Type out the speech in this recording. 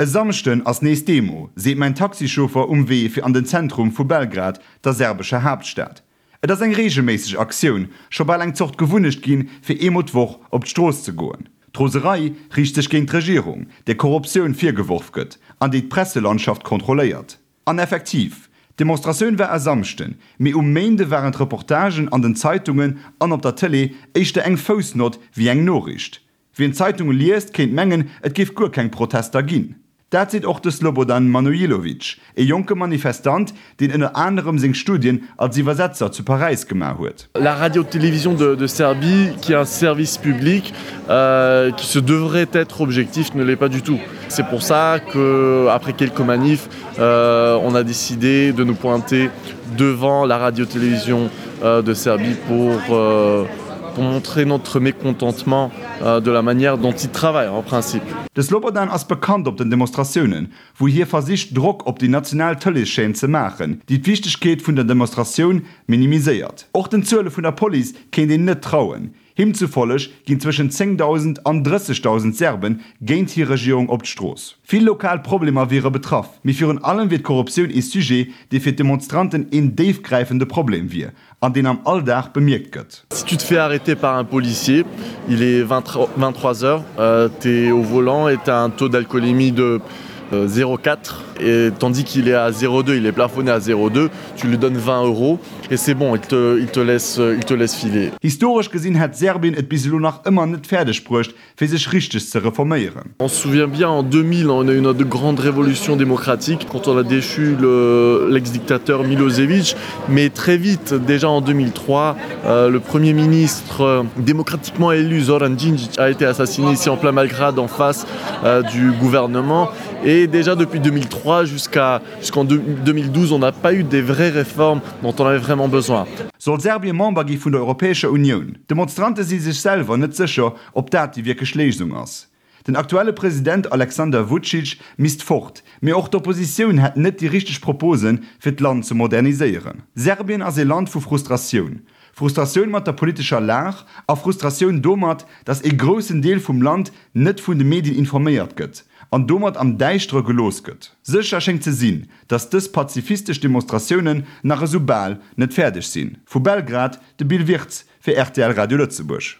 E Samschden ass nees Demo, seet mäin Taxichauffer um Wee fir an den Zentrum vu Belgrad, der serbescher Haaptstad. Et ass eng reegelméisseg Aktioun, scho bal eng Zort Gewunnecht ginn, fir eemol d'Woch op d'Strooss ze goen. D'Roserei riicht sech géint d'Regierung, där Korruptioun virgeworf gëtt an déi d'Presselandschaft kontrolléiert. An effektiv, d'Demonstratioun war e Samschden, mee um Méinde waren d'Reportagen an den Zeitungen an op der Tëlee éischter eng Foussnott wéi eng Noriicht. Wien d'Zeitunge liest, kéint mengen, et géif guer keng Protester ginn. Dat seet och de Slobodan Manojlovic, e jonke Manifestant, deen ënner anerem seng Studien als Iwwersetzer zu Paräis gemaach huet. La Radio-Télévision de de Serbie, qui est un service public, qui se devrait être objectif, ne l'est pas du tout. C'est pour ça que, après quelques manifs, on a décidé de nous pointer devant la Radio-Télévision de Serbie pour pour montrer notre mécontentement de la manière dont ils travaillent en principe. De Slobodan ass bekannt op den Demonstratiounen, wou hie versicht Drock op déi national Tëleeschaîne ze maachen, déi d'Wichtegkeet vun der Demonstratioun minimiséiert. Och den Zuele vun der Police kéint een net trauen. Him zufolleg ginn zwëschen 10.000 an 30.000 Serben géint hir Regierung op d'Strooss. Vill lokal Problemer wiere betraff, mee virun allem wier d'Korruptioun ee Sujet, dee fir d'Demonstranten een déifgräifende Problem wier an deen am Alldag bemierkt gëtt. Si tu te fais arrêter par un policier, il est 23 heures, t'es au volant et t'as un taux d'alcoolémie de 0,4 et tandis qu'il est à 0,2, il est plafonné à 0,2, tu lui donnes 20 euros et c'est bon, il te, il te laisse, il te laisse filer. Historesch gesinn hätt Serbien et bis elo nach ëmmer net fäerdeg bruecht, fir sech richteg ze reforméieren. On se souvient bien en 2000, on a eu notre grande révolution démocratique quand on a déchu le, l'ex-dictateur Milosevic, mais très vite, déjà en 2003, euh, le premier ministre euh, démocratiquement élu Zoran Djindjic a été assassiné ici en plein Malgrad en face euh, du gouvernement et déjà depuis 2003 jusqu'à jusqu'en 2012, on n'a pas eu des vraies réformes dont on avait vraiment besoin. Soll Serbien Member gi vun der Europäescher Unioun? D'Demonstrante si sech selwer net sécher, ob dat déi wierklech Léisung ass. Den aktuelle President Alexander Vucic misst fort, mee och d'Oppositioun hätt net déi richteg Proposen, fir d'Land ze moderniséieren. Serbien ass ee Land vu Frustratioun. Frustratioun mat der politescher Lag a Frustratioun domat, datt ee groussen Deel vum Land net vun de Medien informéiert gëtt an domat am Däischtere gelooss gëtt. Sécher schéngt ze sinn, datt dës pazifistesch Demonstratiounen nach esou bal net fäerdeg sinn. Vu Belgrad, de Bill Wirtz fir rtl Radio Lëtzebuerg.